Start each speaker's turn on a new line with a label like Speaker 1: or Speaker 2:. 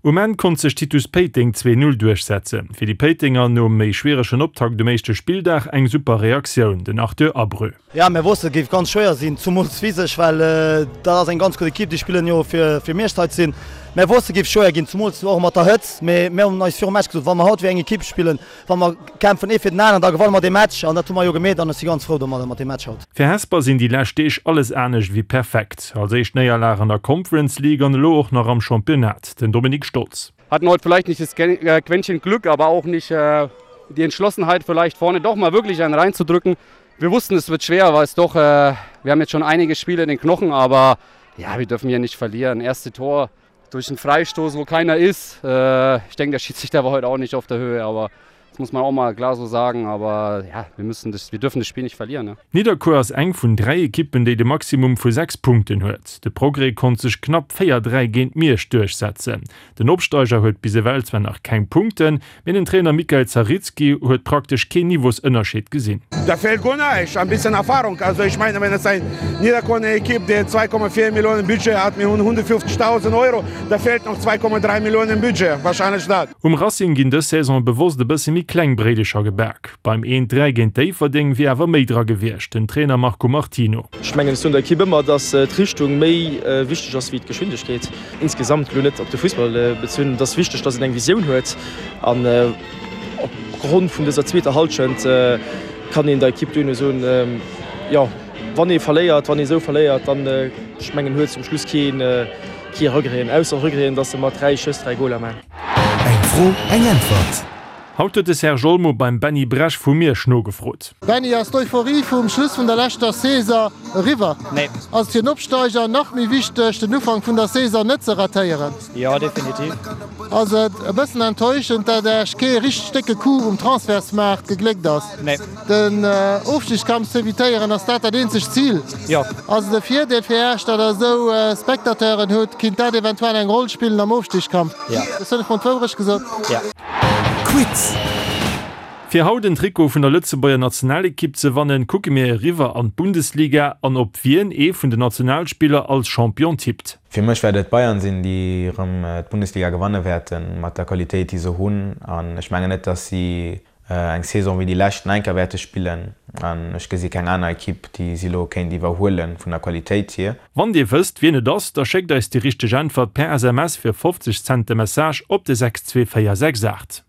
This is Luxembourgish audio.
Speaker 1: Um Enn konnt sech Titus Péiteng 2, 0 duerchsetzen. Fir déi Péitenger nom méi schwieregen Optakt um éischte Spilldag eng super Reaktioun, den Arthur Abreu.
Speaker 2: Jo, mir wossten et géif ganz schwéier sinn, zumools physesch, well dat ass eng ganz gutt Ekipp, déi spillen jo fir fir Mierscht hei ze sinn. Mir wossten et géif schwéier ginn, zumools och mat der Hëtzt, mee mir hunn eis virum Match gesot, wa mer haut wéi eng Ekipp spillen, Wa mer kämpfen ee fir den aneren, da gewanne mer dee Match an dat hu mer jo gemeet an ech si ganz frou domadder mat deem Match haut.
Speaker 1: Fir Hesper sinn déi lescht Deeg alles anescht ewéi perfekt. Als éischt Néierlag an der Conference League an elo och nach am Championnat. Den Dominik Stolz.
Speaker 3: Hatten heute vielleicht nicht das Quäntchen Glück, aber auch nicht die Entschlossenheit vielleicht vorne doch mal wirklich einen reinzudrücken. Wir wussten es wird schwer, weil es doch wir haben jetzt schon einige Spiele in den Knochen, aber ja, wir dürfen hier nicht verlieren. Erste Tor durch einen Freistoß, wo keiner ist. Äh, ich denke, der Schiedsrichter war heute auch nicht auf der Höhe, aber das muss man auch mal klar so sagen. Aber ja, wir müssen das, wir dürfen das Spiel nicht verlieren. Ne?
Speaker 1: Nidderkuer ass eng vun 3 Ekippen, déi de Maximum vu 6 Punkten huet. De Progrès konnt sech knapp 4, 3 géint Miersch duerchsetzen. Den Opsteiger huet bis ewell zwar nach keng Punkten, Mee den Trainer Mikael Zarycki huet praktesch keen Niveausënnerscheed gesinn.
Speaker 4: Da fehlt guer näischt, ein bisschen Erfahrung. Also ich meine, wenn es ein Niederkorner Equipe, der 2,4 Millionen Budget hat, mir hunn 150.000 Euro, da fehlt noch 2,3 Millionen Budget, wahrscheinlech dat.
Speaker 1: Um Racing ginn dës Saison bewosst e bësse méi kleng Bréidecher gebak. Beim 1, 3 géint Déifferdeng wier awer méi dra gewiescht, den Trainer Marco Martino.
Speaker 5: Ech mengen, ech soen der Equipe ëmmer, dass d'Richtung méi wichteg ass wéi d'Geschwindegkeet. Insgesamt, elo net op de Fussball bezunn, et ass wichteg, dass een eng Visioun huet an op Grond vun dëser zweeter Hallschent kann een der Ekipp duerno soen, jo wann ee verléiert, wann ee sou verléiert, dann, ech mengen, huet zum Schluss kee kee Regreten, ausser Regreten, dass se mat 3 Schëss 3 Goler man.
Speaker 1: Eng Fro, eng Äntwert. Haut huet de Serge Olmo beim Benny Bresch vu Miersch nogefrot.
Speaker 6: Benny, ass d'Euphorie vum Schluss vun der leschter Saison eriwwer?
Speaker 7: Nee.
Speaker 6: Ass et fir en Opsteiger nach méi wichteg, den Ufank vun der Saison net ze ratéieren?
Speaker 7: Jo, definitiv.
Speaker 6: Ass et e bëssen enttäuschend, dat Iech kee richteg décke Coup um Transfertsmaart gegléckt ass?
Speaker 7: Nee.
Speaker 6: Den Ofstigskampf z'evitéieren, ass dat dat eenzegt Zil?
Speaker 7: Jo.
Speaker 6: Ass et e Virdeel fir Iech, datt Der esou Spectateuren hutt? Kinnt dat eventuell eng Roll spillen am Ofstigskampf?
Speaker 7: Jo.
Speaker 6: Hunn ech mol d'Wourecht gesot?
Speaker 7: Jo.
Speaker 1: Quiz! Fir haut en Trikot vun der Lëtzebuerger Nationalekipp ze wannen, kucke mir eriwwer an d'Bundesliga an op wien ee vun den Nationalspiller als Champion tippt.
Speaker 8: Fir mech wäert et d'Bayern sinn, déi erëm d'Bundesliga gewanne wäerten, mat der Qualitéit, déi se hunn. An ech mengen net, datt si eng Saison wéi déi lescht nach eng Kéier wäerte spillen. An ech gesi keng aner Ekipp, déi si elo kéint iwwerhuele vun der Qualitéit hier.
Speaker 1: Wann dir wësst wien et ass, da schéckt eis déi richteg Äntwert per SMS fir 50 Cent de Message op de 62468.